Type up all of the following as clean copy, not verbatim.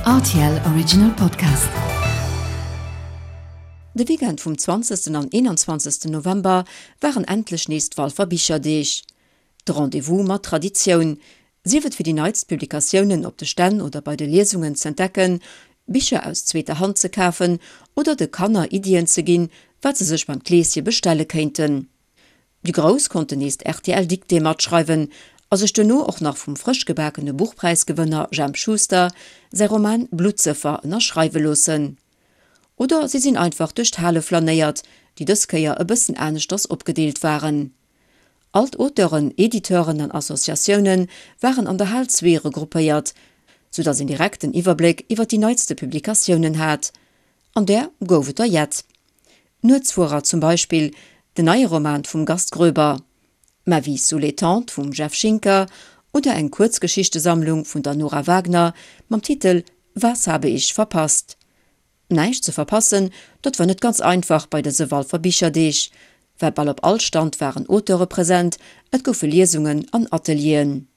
Rtl Original Podcast. De Weekend vum 20. an 21. November waren endlech nees d'Walfer Bicherdeeg. De Rendez-vous mat Traditioun, sief et fir déi neitst Publikatiounen op de Stänn oder bei de Liesungen z'entdecken, Bicher aus zweeter Hand ze kafen oder de Kanner Iddien ze ginn, wat se sech beim Kleeschen bestelle kéinten. Déi Grouss konnten nees d'RTL-Dictée matschreiwen a sech duerno och nach vum frësch gebakene Buchpräisgewënner Jemp Schuster säi Roman Bluttsëffer ënnerschreiwe loossen. Oder si sinn einfach duerch d'Hale flanéiert, déi dës Kéier e bëssen aneschters opgedeelt waren. All d'Auteuren, Editeuren an Associatioune waren an der Hal 2 regroupéiert, soudatt een direkt den Iwwerbléck iwwer déi neitste Publikatiounen hat. An där gouf et der jett. Nuetsfuerer zum Beispill, den neie Roman vum Gast Groeber, Ma vie sous les tentes vum Jeff Schinker oder eng Kuerzgeschichtesammlung vun der Nora Wagner mam Titel Was habe ich verpasst? Näischt ze verpassen, dat war net ganz einfach bei dëse Walfer Bicherdeeg, well bal op all Stand waren Auteure present, et goufe Liesungen an Atelieren.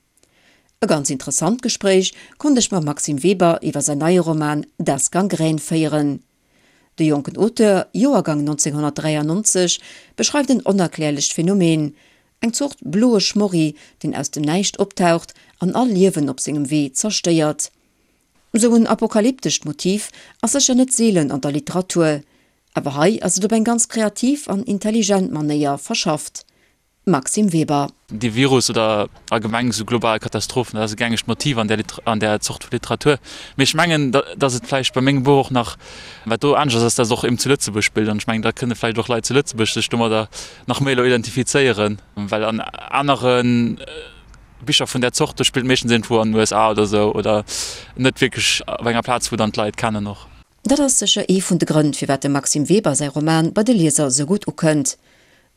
E ganz interessant Gespréich konnt ech mam Maxime Weber iwwer säin neie Roman Das Gangrän féieren. De jonken Auteur, Joergang 1993, beschreift en onerklärlecht Phänomen, eng Zort bloe Schmorri, deen aus dem Näischt optaucht an all Liewen op sengem Wee zerstéiert. Sou en apokalyptescht Motiv ass sécher net seelen an der Literatur, awer hei ass et op eng ganz kreativ an intelligent Manéier verschafft. Maxime Weber. Dee Virus oder allgemeng esou global Katastrophen, dat ass e gängegt Motiv an där an där Zort vu Literatur. Mee ech mengen, datt et vläicht bei mengem Buch och nach, wat do anescht ass, ass, datt et och eben zu Lëtzebuerg spillt. An ech mengen, da kënne vläicht och Leit zu Lëtzebuerg sech domadder nach méi elo identifizéieren, well an anere Bicher vun där Zort, do spillt meeschtens iergendwou an den USA oder esou oder net wierklech op enger Plaz, wou dann d'Leit kennen och. Dat ass sécher ee vun de Grënn, firwat dem Maxime Weber säi Roman bei de Lieser esou gutt ukënnt.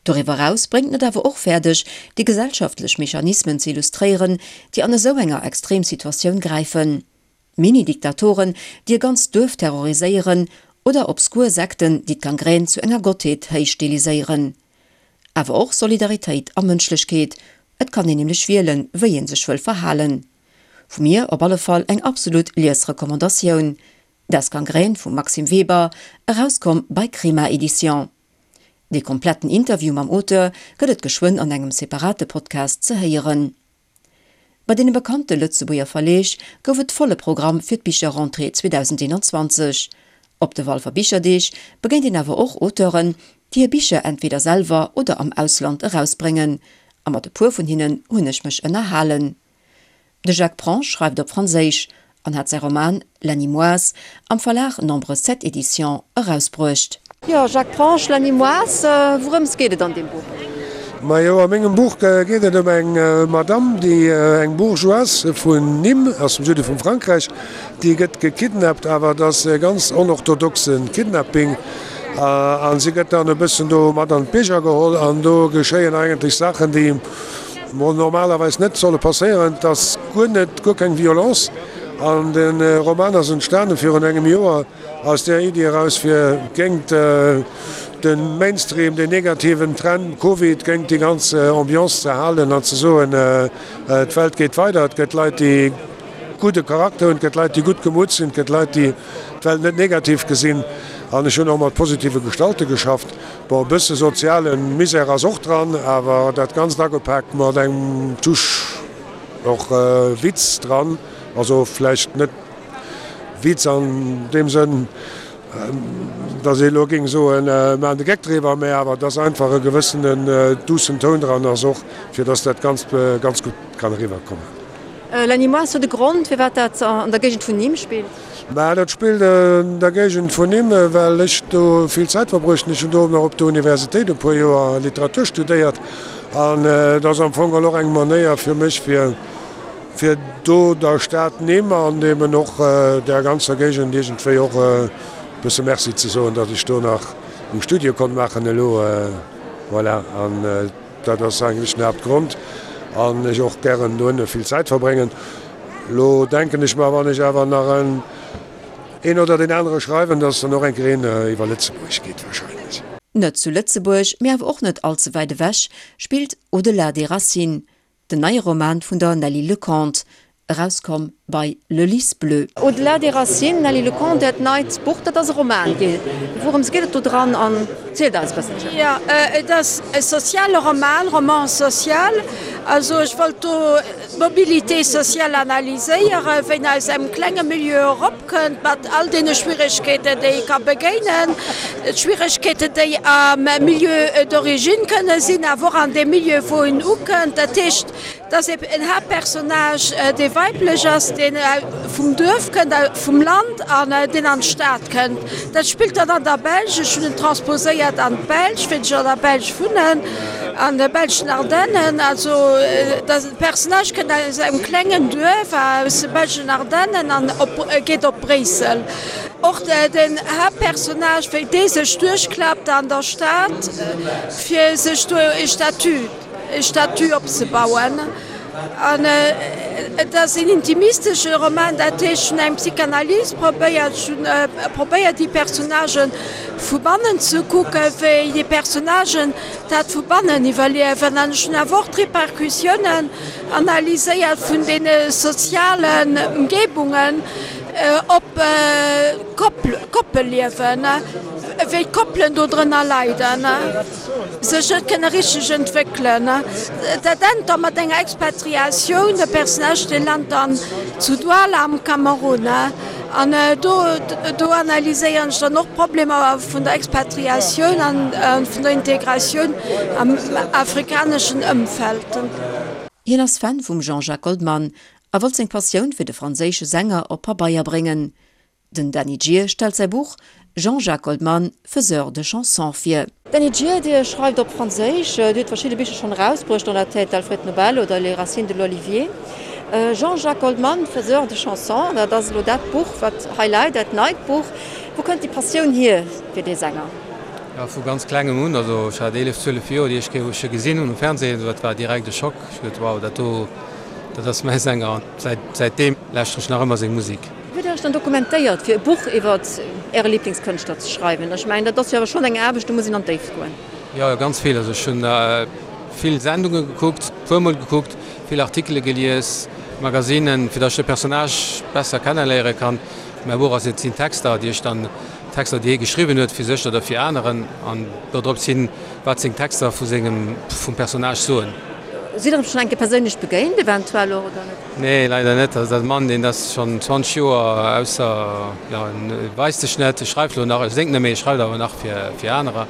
Doriwwer eraus bréngt en et awer och fäerdeg, déi gesellschaftlech Mechanismen ze illustréieren, déi an esou enger Extremsituatioun gräifen. Mini-Diktatoren, déi e ganzt Duerf terroriséieren, oder obskur Sekten, déi d'Gangrän zu enger Gottheet héichstiliséieren. Awer och Solidaritéit a Mënschlechkeet, et kann een nämlech wielen, wéi ee sech wëll verhalen. Vu mir op alle Fall eng absolut Liesrecommandatioun, Das Gangrän vum Maxime Weber, erauskomm bei Crema Edition. Dee kompletten Interview mam Auteur gëtt et geschwënn an engem separate Podcast ze héieren. Bei deene bekannte Lëtzebuerger Verleeg gouf et volle Programm fir d'Bicherrentrée 2021. Op de Walfer Bicherdeeg begéint een awer och Auteuren, déi hir Bicher entweder selwer oder am Ausland erausbréngen, a mat e puer vun hinnen hunn ech mech ënnerhalen. De Jacques Prange schreift op Franséisch an hat säi Roman La Nimoise am Verlag Nombre 7 Éditions erausbruecht. Jo, Jacques Prange, La Nimoise, wourëms geet et an deem Buch? Majo, a mengem Buch geet et ëm eng Madame, déi eng Bourgeoise vun Nîmes, aus dem Süde vum Frankräich, déi gëtt gekidnappt, awer et ass e ganz onorthodoxe Kidnapping a si gëtt dann e bëssen do mat an d'Bierger geholl an do geschéien eigentlech Saachen, déi Mol normalerweis net solle passéieren. Et ass guer net, guer keng Violence. An de Roman ass entstanen virun engem Joer aus där Iddi eraus, fir géingt de Mainstream, den negativen Trend, Covid, géingt déi ganz Ambiance ze halen an ze soen, d'Welt geet weider, et gëtt Leit, déi gudde Charakter hunn, et gëtt Leit, déi gutt gemutt sinn, et gëtt Leit, déi d'Welt net negativ gesinn. An ech hunn och mat positive Gestalte geschafft. Bon, e bësse soziale Misär ass och dran, awer dat Ganzt agepaakt mat engem Touche och Witz dran. Also vläicht net Witz an deem Sënn, datt ee elo géing soen, mir maachen de Geck driwwer, mä awer datt einfach e gewëssenen duussen Toun dran ass och, fir datt dat Ganzt ganz gutt kann eriwwerkommen. Lenny Moes, huet e Grond, firwat dat an der Géigend vun Nîmes spillt? Mä dat spillt an der Géigend vun Nîmes, well ech do vill Zäit verbruecht hunn. Ech hunn do nach op der Universitéit e puer Joer Literatur studéiert an et ass am Fong och eng Manéier fir mech, fir fir do der Stad Nîmes an eben och där ganzer Géigend iergendwéi och e bësse Merci ze soen, datt ech do nach meng Studie konnt maachen elo. Voilà. An Dat ass eigentlech den Haaptgrond an ech och gären dohinne vill Zäit verbréngen. Lo denken ech mer, wann ech awer nach en een oder deen anere schreiwen, dass dann och eng Kéier een iwwer Lëtzebuerg geet wahrscheinlech. Net zu Lëtzebuerg, mee awer och net all ze wäit ewech, spillt Au-delà des racines, den neie Roman vun der Nelly Lecomte. Erauskomm bei Le Lys Bleu. Au-delà des racines, Nelly Lecomte, Äert neit Buch, dat ass e Roman. Wourëms geet et do dran an zielt eis e bësselchen. Jo, et ass e soziale Roman, roman social. Also ech wollt do d'Mobilité sociale analyséieren, wéi en aus engem klenge Milieu eropkënnt mat all deene Schwieregkeeten, déi e ka begéinen, d'Schwieregkeeten, déi am Milieu d'origine kënne sinn, awer och an deem Milieu, wou en ukënnt. Dat heescht, Et ass en Haaptpersonnage, dee weiblech ass, deen vum Duerf kënnt, vum Land, an deen an d'Stad kënnt. Dat spillt dann an der Belsch. Ech hunn en transposéiert an d'Belsch, wéi ech an der Belsch wunnen, an de belschen Ardennen. Also de Personnage kënnt aus engem klengen Duerf aus de belschen Ardennen an geet op Bréissel. Och den Haaptpersonnage, wéi dee sech duerchklappt an der Stad, fir sech do e Statut. e Statut opzebauen. An et ass een intimistesche Roman, dat heescht, ech hunn eng Psychanalyse probéiert, ech hunn probéiert déi Personnagen vu bannen ze kucken, wéi déi Personnagen dat vu bannen iwwerliewen. An ech hunn awer och d'Repercussiounen analyséiert vun deene sozialen Ëmgebungen op d'Koppelliewen, wéi d'Koppelen do drënner leiden. Sech net kënne richteg entwéckelen. Dat ennt da mat enger Expatriatioun, de Personnage dee lant dann zu Douala am Kamerun. An do do analyséieren ech dann och d'Problemer vun der Expatriatioun an vun der Integratioun am afrikaneschen Ëmfeld. Hien ass Fan vum Jean-Jacques Goldman a wollt seng Passioun fir de franséische Sänger op Pabeier bréngen. Den Dany Gir stellt säi Buch Jean-Jacques Goldman, faiseur de chansons vir. Dany Gir, Dir schreift op Franséisch, Dir hutt verschidde Bicher schonn erausbruecht, Dans la tête d'Alfred Nobel oder Les racines de l'olivier. Jean-Jacques Goldman, faiseur de chansons, dat ass elo dat Buch, wat hei läit, dat neit Buch. Wou kënnt déi Passioun hier fir dee Sänger? Jo, vu ganz klengem un, also ech hat 11, 12 Joer, déi éischt Kéier wou ech e gesinn hunn um Fernsehen, dat war direkt e Schock. Ech hu geduet, wow, dat do, dat ass mäi Sänger. An säitdeem lauschteren ech nach ëmmer seng Musek. Hutt Dir Iech dann dokumentéiert, fir e Buch iwwer Äre Liblingskënschtler ze schreiwen? Ech mengen, dat ass jo awer schonn eng Aarbecht, do muss een an d'Déift goen. Jo, ganz vill. Also ech hunn vill Sendunge gekuckt, puer mol gekuckt, vill Artikele gelies, Magazinen, fir datt ech de Personnage besser kenneléiere kann. Mäi Buch ass, et sinn Texter, déi ech dann, Texter, déi hie geschriwwen huet fir sech oder fir aneren, an dodrop sinn, wat seng Texter vu sengem, vum Personnage soen. Sidd Der em schonn eng Kéier perséinlech begéint eventuell och, oder net? Nee, leider net. Also dat Mann, deen ass schonn 20 Joer ausser, jo, en weist sech net, e schreift elo nach, e séngt net méi, e schreift awer nach fir, fir anerer.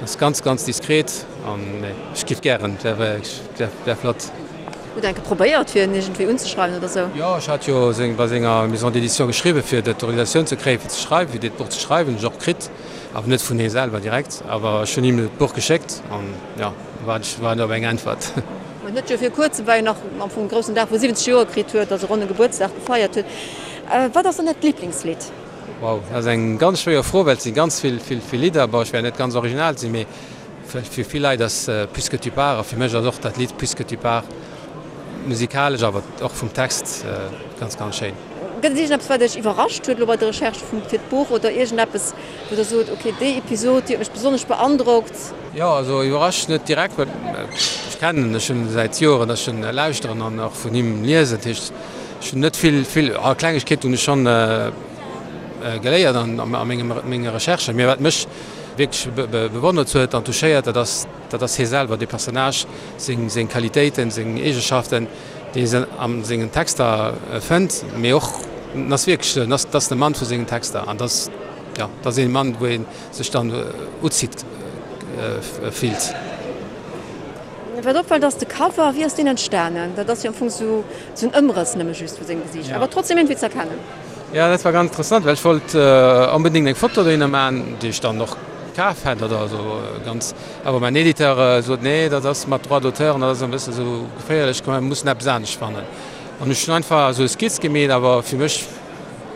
Ass ganz, ganz diskret an nee, ech giff gären, wär, wär, wär flott. Hutt Der enke probéiert, fir en iergendwéi unzeschreiwen oder sou? Jo, ech hat jo seng, bei senger Maison d'édition geschriwwen, fir d'Autorisatioun ze kréien, fir ze schreiwen, fir dat Buch ze schreiwen. Hunn ech och kritt, awer net vun hie selwer direkt, awer ech hunn him d'Buch geschéckt an jo. Waarden ech waarden op eng Äntwert. Ma net jo vir kuerzem war jo nach am Fong groussen Dag wou 70 Joer kritt huet, also ronne Gebuertsdag gefeiert huet. Wat ass dann Äert Liblingslidd? Wow, dat ass eng ganz schwéier Fro, well et si ganz vill, vill, vill Lidder. Bon, ech wäert net ganz original sinn, mee vläicht fir vill Leit ass Puisque tu pars a fir mech ass och dat Lidd Puisque tu pars musikalesch, awer och vum Text ganz, ganz schéin. Gëtt et iergendeppes wat Iech iwwerrascht huet elo bei der Recherche vum fir d'Buch oder iergendeppes wou Der sot, ok déi Episod déi huet mech besonnesch beandrockt? Jo, also iwwerrascht net direkt, well ech kennen en schonn säit Joren, dass ech en lauschteren an och vun him liesen. Dat heescht, ech hunn net vill, vill, ah, Klengegkeeten hunn ech schonn geléiert an a mengem, menge Recherchen. Mee wat mech wierklech bewonnert huet an touchéiert, dat ass, dat ass hie selwer, dee Personnage, seng, seng Qualitéiten, seng Eegeschaften, déi een a sengen Texter fënnt. Mee och, en ass wierklech, en ass, dat ass de Mann vu sengen Texter an dat ass, jo, dat ass ee Mann, wou ee sech dann uzitt fillt. Wat opfält ass de Cover, wéi ass deen entstanen? Dat ass jo am Fong sou en Ëmrëss nëmme just vu sengem Gesiicht, awer trotzdem iergendwéi ze erkennen. Jo, dat war ganz interessant, well ech wollt onbedéngt eng Foto dohinner maachen, déi ech dann och kaf hätt oder esou ganz, awer mäin Editeur sot, nee, dat ass mat Droit d'auteur an dat ass e bësse sou geféierlech, komm mir mussen eppes anescht fannen. An ech hunn einfach esou e Skizz gemeet, awer fir mech,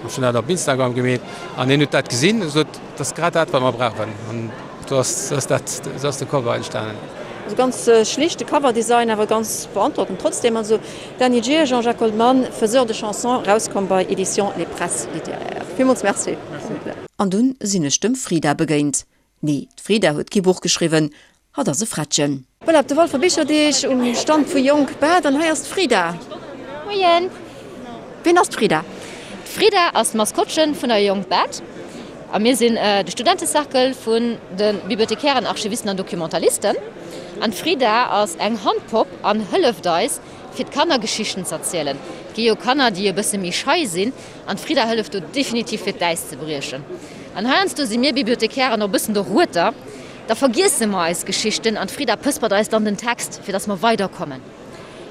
ech hunn dat op Instagram gemeet an hien huet dat gesinn a sot, Dat ass grad dat, wat mer brauchen. An do ass, ass dat, esou ass de Cover entstanen. Also ganz schlichte Coverdesign, awer ganz beandrockend trotzdem. Also Dany Gir, Jean-Jacques Goldman, Faiseur de chansons, erauskomm bei Editions Les Presses littéraires. Villmools Merci. An dunn sinn ech dem Frida begéint. Nee, d'Frida huet kee Buch geschriwwen, hatt ass e Frettchen. Voilà, op de Walfer Bicherdeeg um Stand vu Jonk Bad an hei ass d'Frida. Moien. Wien ass d'Frida? D'Frida ass d'Maskottchen vun der Jonk Bad a mir sinn de Studentecercle vun de Bibliothekären, Archivisten an Documentalisten. An d'Frida ass eng Handpopp an hëlleft eis fir d'Kanner Geschichten z'erzielen. Et gi jo Kanner déi e bësse méi schei sinn an d'Frida hëlleft do definitiv fir d'Äis ze briechen. An heiansdo si mir Bibliothekären och e bëssen de Rueter, da vergiesse mer eis Geschichten an d'Frida pëspert eis dann den Text fir dass mer weiderkommen.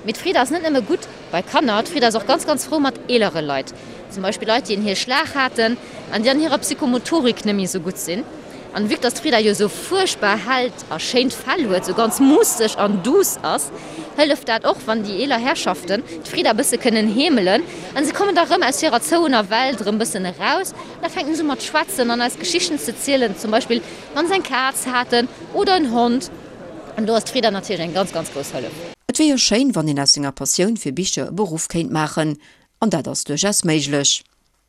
Mee d'Frida ass net nëmme gutt bei Kanner, d'Frida ass och ganz ganz frou mat eelere Leit, zum Beispill Leit déi en hir Schlag haten an déi an hirer Psychomotorik net méi esou gutt sinn. An vue que dass d'Frida jo esou fuerchtbar hellt a schéint Fell huet, esou ganz muusseg an douce ass, hëlleft dat och wann déi eeler Herrschaften d'Frida bësse kënnen heemelen an se kommen da rëm aus hirer zouener Welt rëm bëssen eraus an da fänken se u mat schwätzen an eis Geschichten ze zielen, zum Beispill wann se eng Kaz haten oder en Hond. An do ass d'Frida natierlech eng ganz, ganz grouss Hëllef. Et wier jo schéin, wann een aus senger Passioun fir Bicher e Beruff kéint maachen, an dat ass duerchaus méiglech.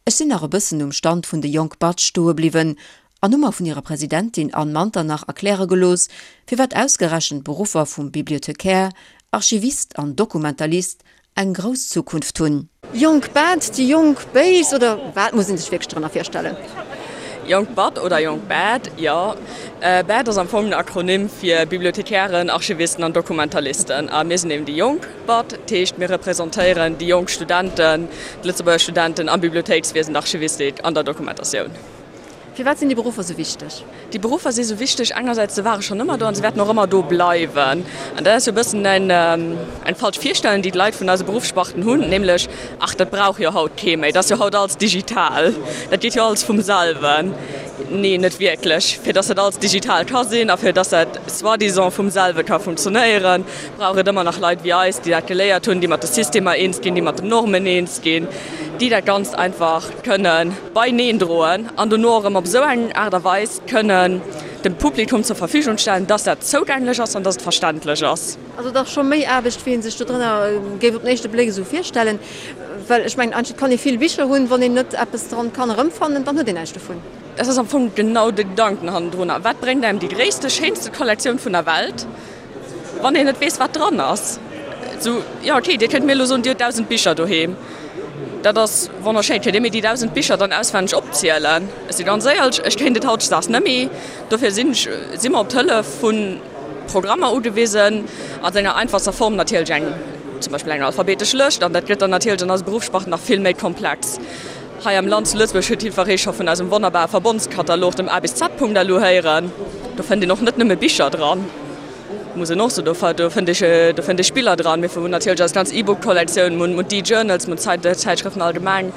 Ech sinn nach e bëssen um Stand vun de Jonk Batsch stoe bliwwen an hu mer vun hirer Presidentin Anne Manternach erkläre gelooss, firwat ausgerechent d'Beruffer vum Bibliothecaire, Archivist an Dokumentalist eng grouss Zukunft hunn. Jonk Bad, déi jonk Béis oder wat muss een sech wierklech drënner virstellen? Jonk Bad oder Jonk Bad, jo. Bad ass am Fong den Akronym fir Bibliothekären, Archivisten an Dokumentalisten. A mir sinn eben déi Jonk. Bad, dat heescht mir representéieren déi jonk Studenten, d'Lëtzebuerger Studenten am Bibliothéikswiesen, der Archivistik an der Dokumentatioun. Firwat sinn déi Beruffer sou wichteg? Déi Beruffer si sou wichteg, engersäits se ware schonn ëmmer do an se wäerten och ëmmer do bleiwen. An dat ass jo e bëssen eng eng falsch Virstellung, déi d'Leit vun eise Beruffssparten hunn, nämlech, ach dat brauch jo haut kee méi, dat ass jo haut alles digital, dat geet jo alles vum selwen. Nee, net wierklech. Fir datt dat alles digital ka sinn a fir datt dat soi-disant vum selwe ka funktionéieren, brauch et ëmmer nach Leit wéi eis, déi dat geléiert hunn, déi mat de Systemer eens ginn, déi mat den Normen eens ginn, déi dat Ganzt einfach kënne beineen droen an dono och erëm op esou eng Aart a Weis kënnen dem Publikum zur Verfügung stellen, dass dat zougänglech ass an dass et verständlech ass. Also et ass scho méi Aarbecht, wéi ee sech dodrënner géif op den éischte Bléck esou virstellen. Well ech mengen, eigentlech kann ee vill Bicher hunn, wann een net eppes dran kann erëmfannen, dann huet een näischt dovun. Dat ass am Fong genau de Gedanken hannendrunner. Wat bréngt engem déi gréisste, schéinste Kollektioun vun der Welt, Wann een net weess, wat dran ass. Sou, jo, okay, Dir kënnt mir elo soen, Dir hutt 1.000 Bicher doheem. Dat ass wonnerschéin. Kënnt Dir mir déi 1.000 Bicher dann auswenneg opzielen? Ech si ganz éierlech, ech kéint et hautdesdaags net méi. Dofir sinn ech, si mer op d'Hëllef vu Programmer ugewisen, a senger einfachster Form natierlech eng, zum Beispill eng alphabetesch Lëscht. An dat gëtt dann natierlech an eise Beruffssparten nach vill méi komplex. Hei am Land zu Lëtzebuerg huet jiddweree scho vun eisem wonnerbare Verbondskatalog, dem A bis Z.lu héieren. Do fënnt een och net nëmme Bicher dran, muss een och soen, do fënnt ee, do fënnt ee Spiller dran. Mir hunn natierlech eis ganz E-Book-Kollektioun, mir hunn d'E-Journals, mir hunn d'Zäitschrëften allgemeng.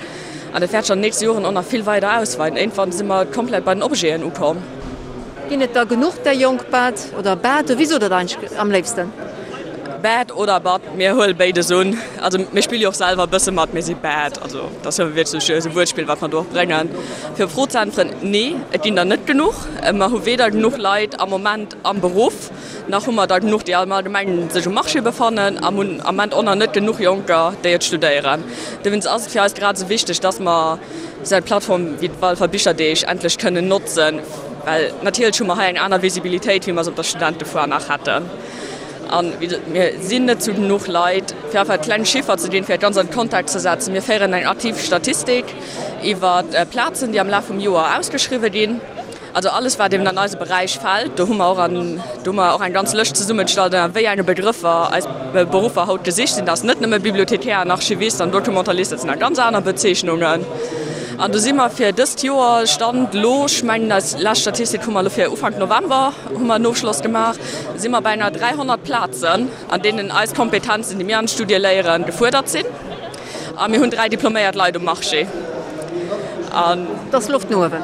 An dat wäert sech an den nächste Joren och nach vill weider ausweiden. Iergendwann si mer komplett bei den Objeten ukomm. Ginn et der genuch där jonk Bad oder Bad? Wéi sot der dat eigentlech am léifsten? Bad oder Bad, mir huele béides un. Also mir spille jo och selwer e bësse mat, mir si Bad. Also dat ass jo wierklech esou e Wuertspill, wat mer do och bréngen. Fir op d'Fro ze äntweren, Nee, et ginn der net genuch. Mer hu weder genuch Leit am Moment am Beruff, nach hu mer der genuch, déi am Allgemengen sech um Marché befannen a mir hunn am Moment och nach net genuch Jonker, déi et studéieren. Dowéinst ass et fir eis grad esou wichteg, dass mer esou eng Plattform wéi d'Walfer Bicherdeeg endlech kënnen notzen, well natierlech hu mer hei eng aner Visibilitéit, wéi mer se op der Studentefoire nach hätten. A mir sinn net zu genuch Leit, fir einfach e kleng Chiffer ze ginn, fir dat Ganzt an de Kontext ze setzen, Mir féieren eng aktiv Statistik iwwer Plazen, déi am Laf vum Joer ausgeschriwwe ginn. Also alles wat eben an eise Beräich fält, do hu mer och an do hu mer och eng ganz Lëscht zesummegestallt ënner wéi enge Begrëffer eis Beruffer haut gesicht sinn. Dat ass net nëmme Bibliothekär an Archivist an Documentalist, dat sinn nach ganz aner Bezeechnungen. An do si mer fir dëst Joer, Stand elo, ech mengen eis lescht Statistik hu mer elo fir Ufank November hu mer en Ofschloss gemaach, si mer bei enger 300 Plazen, an deenen eis Kompetenzen, déi mir an de Studie léieren, gefuerdert sinn. A mir hunn 3 diploméiert Leit um Marché. An. Do ass Loft no uewen.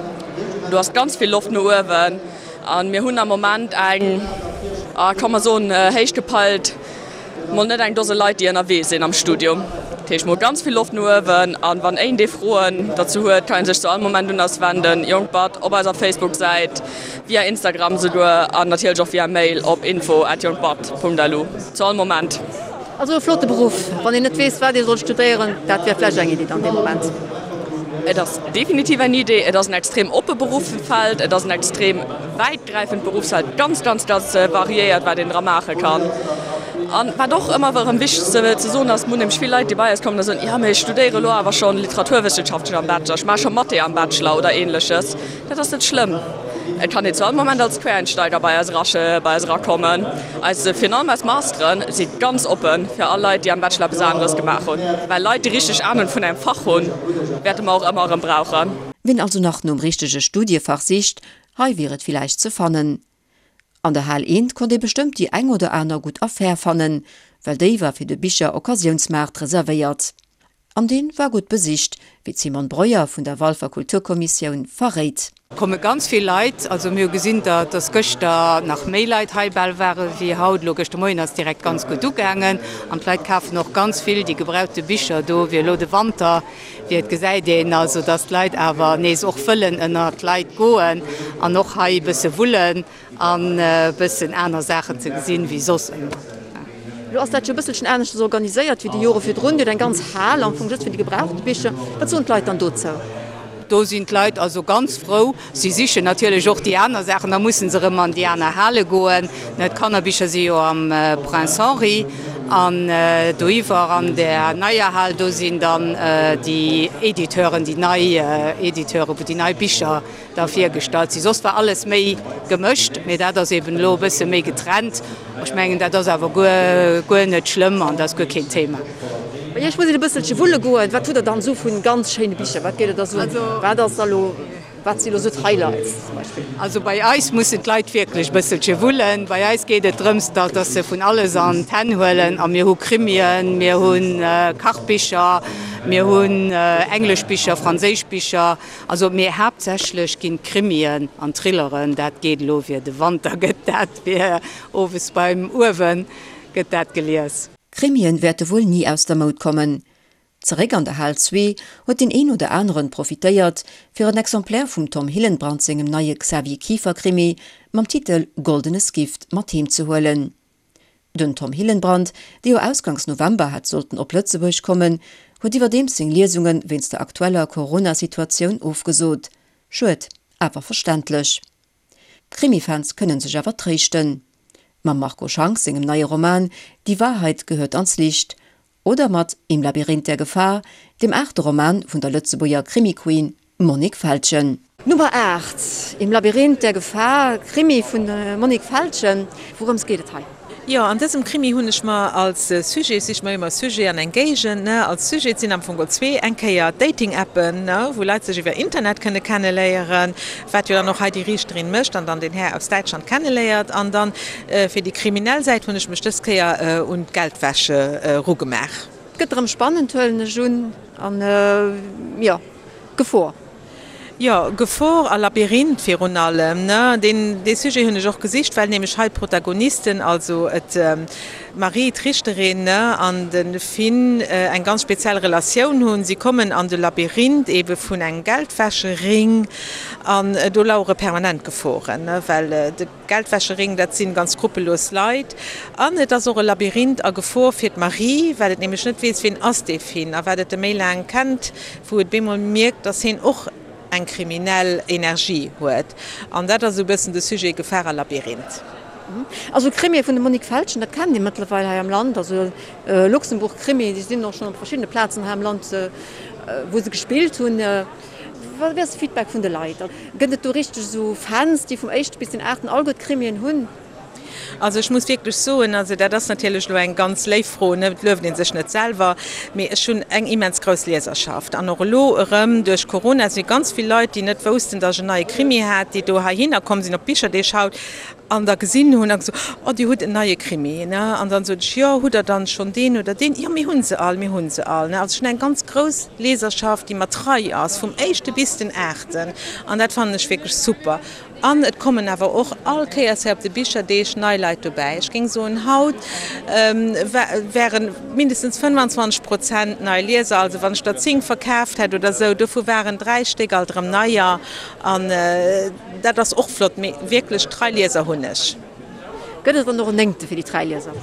Do ass ganz vill Loft no uewen. A mir hunn am Moment eng, ka mer soen, héich gepeilt, mol net eng Dose Leit, déi ënnerwee sinn am Studium. Dat heescht, mir hu ganz vill Loft no uewen. A wann een dee Froen derzou huet, kann ee sech zu all Moment un eis wenden, Jonkbad op eiser Facebook-Säit, via Instagram souguer an natierlech och via Mail op info@jonkbad.lu. Zu all Moment. Also e flotte Beruff. Wann een net weess, wat ee soll studéieren, dat wär vläicht eng Iddi dann dee Moment. Et ass definitiv eng Idee. Et ass en extrem oppe Beruffsfeld. Et ass en extrem wäitgräifend Beruffsfeld, ganz, ganz, ganz variéiert, wat een dra maache kann. An wat och ëmmer erëm wichteg ze soen ass, mir hunn nämlech vill Leit, déi bei eis kommen a soen, jo mee ech studéiere elo awer schonn Literaturwëssenschaften am Bachelor, ech maache scho Mathé am Bachelor oder Ähnleches. Dat ass net schlëmm. Et kann een zu all Moment als Quereinsteiger bei eis bei eis erakommen. Eis, virun allem eis Masteren si ganz oppe fir all Leit, déi am Bachelor eppes aneres gemaach hunn. Well Leit, déi richteg Anung vun engem Fach hunn, wäerte mer och ëmmer erëm brauchen. Ween also nach nom richtege Studiefach sicht, hei wier et villäicht ze fannen. An der Hal eent konnt ee bestëmmt déi eng oder aner gutt Affär fannen, well déi war fir de Bicher-Occasiounsmaart reservéiert. An dee war gutt besicht, wéi d'Simone Breuer vun der Walfer Kulturkommissioun verréit. Komme ganz vill Leit. Also mir hu gesinn, datt gëschter nach méi Leit hei bal ware wéi haut. Elo gëschter Moien ass direkt ganz gutt ugaangen an d'Leit kafen och ganz vill déi gebrauchte Bicher do, wéi elo de Wanter wier. Et gesäit een also, datt d'Leit awer nees och wëllen ënner d'Leit goen an och hei e bësse wullen. An e bëssen aner Saachen ze gesinn, wéi soss ëmmer. Elo ass dat jo e bësselchen aneschters organiséiert wéi déi Jore virdrun. Dir hutt eng ganz Hal am Fong just fir déi gebrauchte Bicher. Wat soen d'Leit dann dozou? Do sinn d'Leit also ganz frou. Si sichen natierlech och déi aner Saachen, da musse se erëm an déi aner Hale goen. D'Kannerbicher si jo am Prince Henri an doiwwer an där neier Hal, do sinn dann déi Editeuren, déi nei Editeuren, wou déi nei Bicher da virgestallt sinn. Soss war alles méi gemëscht, mee dat ass eben elo e bësse méi getrennt. Ech mengen, dat ass awer guer, guer net schlëmm an dat ass guer keen Thema. Bei Iech muss een e bësselche wulle goen. Wat hutt Der dann esou vu ganz schéine Bicher? Wat gétt Der da soen? Wat ass da elo, wat si elo esou d'Highlights zum Beispill? Also bei eis mussen d'Leit wierklech e bësselche wullen. Bei eis geet et drëms, datt se vun alles an d'Hänn huelen. A mir hu Krimien, mir hu Kachbicher, mir hunn englesch Bicher, franséisch Bicher. Also mee haaptsächlech ginn d'Krimien an Thrilleren, dat geet elo fir de Wanter gëtt dat fir owes beim Uewen gëtt dat gelies. Krimien wäerte wuel ni aus der Moud kommen. Zeréck an der Hal zwee huet deen een oder aneren profitéiert, fir en Exemplaire vum Tom Hillenbrand sengem neie Xavier Kieffer-Krimi mam Titel Goldenes Gift mat heem ze huelen. Den Tom Hillenbrand, dee jo ausgangs November hätt sollten op Lëtzebuerg kommen, huet iwwerdeems seng Liesunge wéinst der aktueller Corona-Situatioun ofgesot. Schued, awer verständlech. D'Krimi-Fans kënne sech awer tréischten. Mam Marco Schank sengem neie Roman Die Wahrheit gehört ans Licht Oder mat Im Labyrinth der Gefahr, dem aachte Roman vun der Lëtzebuerger Krimi-Queen Monique Feltgen. Nummer 8, Im Labyrinth der Gefahr, Krimi vun Monique Feltgen. Wourëms geet et hei? Jo, an dësem Krimi hunn ech mer als Sujet, ech sich mer ëmmer Sujet an eng Géigend, ne, als Sujet, et sinn am Fong geholl zwee, eng Kéier d'Dating-Appen, ne, wou Leit sech iwwer Internet kënne kenneléieren, wat jo dann och hei déi Riichterin mécht an dann den Här aus Däitschland kenneléiert an dann Fir déi kriminell Säit hunn ech mech dës Kéier un d'Geldwäsche erugemaach. Et gëtt erëm spannend, huelen ech un, an jo, Gefor. Jo, Gefor a Labyrinth virun allem. Deen, dee Sujet hunn ech och gesicht, well nämlech hei d'Protagonisten, also et d'Marie, d'Richterin, an de Finn eng ganz speziell Relatioun hunn. Si kommen an de Labyrinth ebe vun engem Geldwäschering an do lauere permanent Geforen, well de. Geldwäschering, dat sinn ganz skrupellos Leit. An et ass och e Labyrinth a Gefor fir d'Marie, well et nämlech net weess, wien ass dee Finn. A wat et e méi laang kennt, wou et bemol mierkt, dass hien och eng kriminell Energie huet. An dat ass esou e bëssen de Sujet, Gefahr a Labyrinth. Also Krimie vun dem Monique Feltgen, dat kennt ee mëttlerweil hei am Land. Also Luxembourg-Krimie, déi sinn och schonn op verschiddene Plazen hei am Land, wou se gespillt hunn. Wat ass de Feedback vun de Leit? Gëtt et do richteg esou Fans, déi vum éischte bis den aachten alleguer d'Krimien hunn? Also ech muss wierklech soen, also dat ass natierlech elo eng ganz léif Fro, ne, et lueft ee sech net selwer, mee ech hunn eng immens grouss Lieserschaft. An och elo erëm duerch Corona si ganz vill Leit, déi net woussten, datt ech en neie Krimi hat, déi do heihinner komm sinn op d'Bicherdeeg haut an da gesinn hunn a gesot, Oh, Dir hutt en neie Krimi, ne? An dann sot ech, Jo, hutt Der dann schonn deen oder deen? Jo, mir hu se all, mir hu se all, ne? Also ech hunn eng ganz grouss Leserschaft, déi mer trei ass, vum éischte bis den aachten. An dat fannen ech wierklech super. An et kommen awer och all Kéiers hei op de Bicherdeeg nei Leit dobäi. Ech géing soen, haut ware mindestens 25 Prozent nei Lieser. Also wann ech der 10 verkaaft hätt oder esou, dovu waren 3 Stéck alt erëm neier. An dat ass och flott, mee wierklech trei Lieser hunn ech. Gëtt et dann och en Néngte fir déi trei Lieser?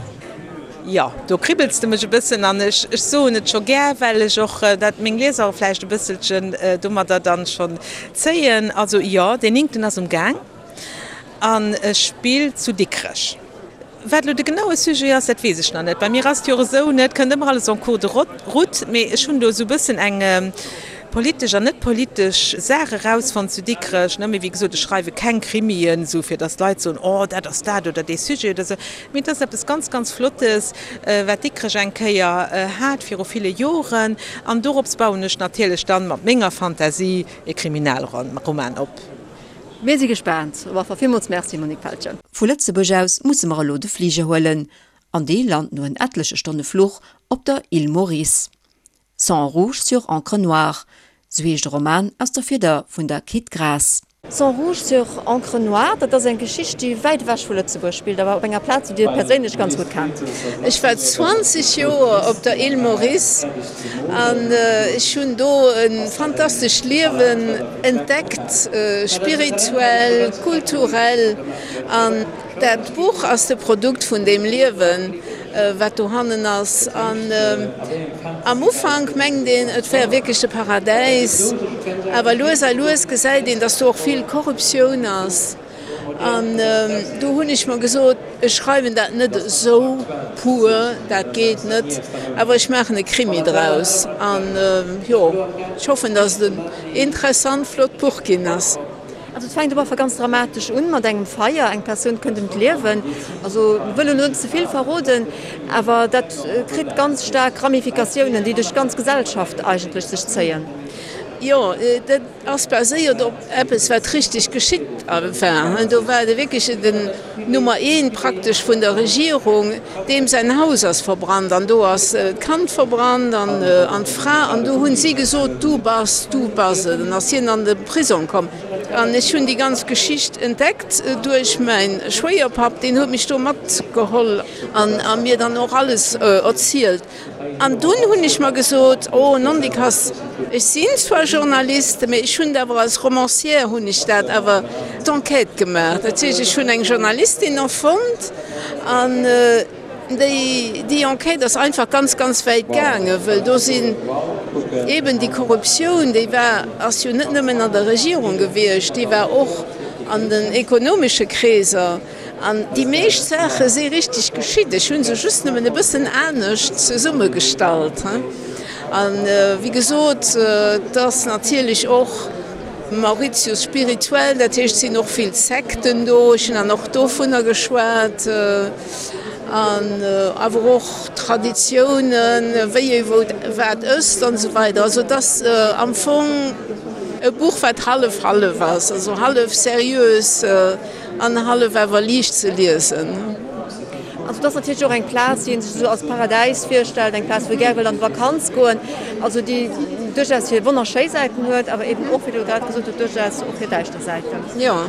Jo, do kribbels de mech e bëssen an ech soen et scho gär, well ech och dat meng Lieser vläicht e bësselchen domadder dann schonn zéien. Also jo, deen Néngten ass um Gaang an e spillt zu Dikrech. Wat elo de genaue Sujet ass, dat weess ech nach net. Bei mir ass et jo och esou, ne, et kënnt ëmmer alles en cours de route, mee ech hunn do esou e bëssen eng politesch an net politesch Saach erausfonnt zu Dikrech, ne. Mee wéi gesot, ech schreiwe keng Krimien, esou fir datt d'Leit soen, oh dat ass dat oder dee Sujet oder esou, mee et ass eppes ganz, ganz Flottes, wat Dikrech eng Kéier hat viru ville Joren an dorops bauen ech natierlech dann mat menger Fantasie e Kriminalroman op. Mir si gespaant. Op alle Fall villmools Merci, Monique Feltgen. Vu Lëtzebuerg aus musse mer elo de Fliger huelen, an dee lant no en etleche Stonne Fluch op der Île Maurice. Sang rouge sur encre noire, sou heescht e Roman aus der Fieder vun der Kit Graas. Sang rouge sur encre noire, dat ass eng Geschicht, déi wäit ewech vu Lëtzebuerg spillt, awer op enger Plaz, déi Dir perséinlech ganz gutt kennt. Ech war 20 Joer op der Île Maurice an ech hunn do e fantastescht Liewen entdeckt, spirituell, kulturell. An dat Buch ass de Produkt vun deem Liewen, wat dohannen ass. An am Ufank mengt een, et wär wierklech de Paradäis, awer lues a lues gesäit een, dass do och vill Korruptioun ass. An do hunn ech mer gesot, ech schreiwen dat net esou pur, dat geet net, awer ech maachen e Krimi draus. An jo, ech hoffen, datt et en interessant, flott Buch ginn ass. Also et fänkt op alle Fall ganz dramatesch un, mat engem Feier, eng Persoun kënnt ëm d'Liewen. Also wëll elo net ze vill verroden, awer dat kritt ganz staark Ramifikatiounen, déi duerch d'ganz Gesellschaft eigentlech sech zéien. Jo, dat ass baséiert op eppes wat richteg geschitt war. Do war de wierklech den Nummer eent praktesch vun der Regierung, deem säin Haus ass verbrannt an do ass d'Kand verbrannt an an d'Fra an do hunn si gesot, du bass, du bass et. An ass hien an de Prisong komm. An ech hunn déi ganz Geschicht entdeckt duerch mäin Schwéierpapp, deen huet mech do matgeholl an a mir dann och alles erzielt. An dunn hunn ech mer gesot, oh nondikass, ech sinn zwar Journaliste, mee ech hunn et awer als Romancière hunn ech dat awer d'Enquête gemaach. Dat heescht, ech hunn eng Journalistin erfonnt an déi, déi Enquête ass einfach ganz, ganz wäit gaangen, wëll do sinn eeben déi Korruptioun, déi war, ass jo net nëmmen an der Regierung gewiescht, déi war och an den ekonomesche Kreeser. An déi meescht Saache si richteg geschitt, ech hu se just nëmmen e bëssen anescht zesummegestallt. A wéi gesot, et ass natierlech och Mauritius spirituell, dat heescht, et sinn och vill Sekten do, ech hunn dann och dovunner geschwat, an awer och Traditiounen, wéi ee wou wat ësst an esou weider. Also et ass am Fong e Buch, wat hallef-hallef ass, also hallef seriös. An hallef awer liicht ze liesen. Also et ass natierlech och eng Plaz, déi ee sech esou als Paradäis virstellt, eng Plaz, wou ee gär wëll an d'Vakanz goen, also déi duerchaus hir wonnerschéi Säiten huet, awer eben och, wéi Der grad gesot hutt, duerchaus och hir däischter Säiten. Jo,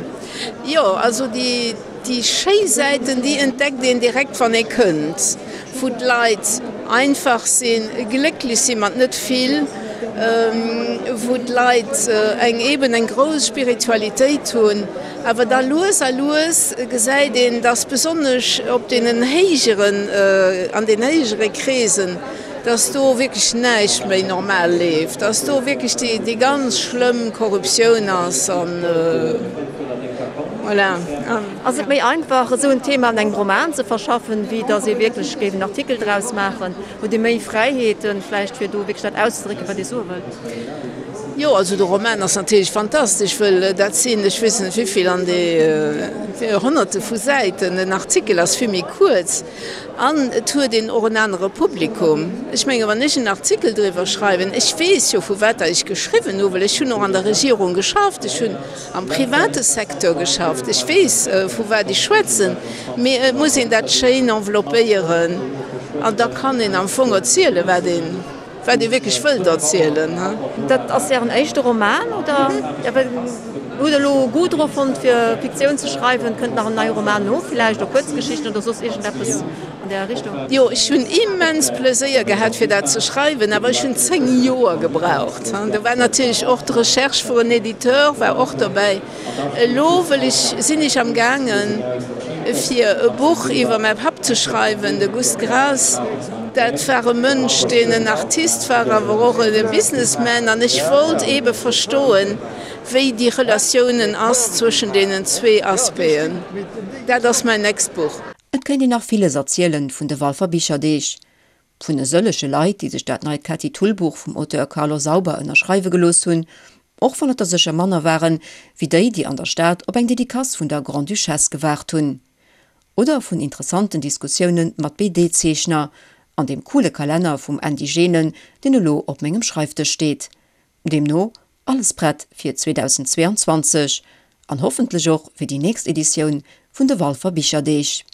jo, also déi, déi schéi Säiten, déi entdeckt een direkt, wann ee kënnt, wou d'Leit einfach sinn, glécklech si mat net vill, wou d'Leit eng eben eng grouss Spiritualitéit hunn. Awer da lues a lues gesäit een, dass besonnesch op deenen héijeren, an den héijere Kreesen, dass do wierklech näischt méi normal leeft, dass do wierklech déi, déi ganz schlëmm Korruptioun ass an voilà. Ass et méi einfach, esou en Thema an engem Roman ze verschaffen, wéi dass ee wierklech géif en Artikel draus maachen? Hutt Dir méi Fräiheeten vläicht, fir do wierklech dat auszedrécken, wat Dir soe wëllt? Jo, also de Roman ass natierlech fantastesch, wëll dat sinn, ech weess net wéivill, an de Honnerte vu Säiten. En Artikel ass vill méi kuerz an et huet een och en anere Publikum. Ech menge wann ech en Artikel driwwer schreiwen, ech weess jo vu wat der ech geschriwwen hu, well ech hunn och an der Regierung geschafft, ech hunn am private Secteur geschafft, ech weess vu wat ech schwätzen, mee et muss een dat schéin enveloppéieren an da kann een am Fong erzielen, wat een. Wat ee wierklech wëllt erzielen. Dat ass Ären éischte Roman, oder? Hutt Der elo Goût dru fonnt, fir Fiktioun ze schreiwen? Kënnt nach en neie Roman no villäicht, oder Kuerzgeschichten oder soss iergendeppes an där Richtung? Jo, ech hunn immens Pleséier gehat, fir dat ze schreiwen, awer ech hunn 10 Joer gebraucht. Do war natierlech och d'Recherche vur en Editeur war och dobäi. Elo wëll ech, sinn ech am gaangen fir e Buch iwwer mäi Papp ze schreiwen, de Gust Graas. Dat war e Mënsch, deen en Artist war, awer och e Businessman an ech wollt eebe verstoen, wéi déi Relatiounen ass zwëschen deenen zwee Aspecten. Dat ass mäin nächst Buch. Et kéint een nach villes erzielen vun de Walfer Bicherdeeg. Vun e sëllege Leit, déi sech dat neit Ketty Thull Buch vum Auteur Carlo Sauber ënnerschreiwe gelooss hunn, och wann et der sécher manner waren, wéi déi, déi an der Stad op eng Dedicace vun der Grande-Duchesse gewaart hunn. Oder vun interessanten Diskussioune mat BD-Zeechner an deem coole Kalenner vum Andy Genen, deen elo op mengem Schreifdësch steet. Deemno alles prett fir 2022 an hoffentlech och fir déi nächst Editioun vun de Walfer Bicherdeeg.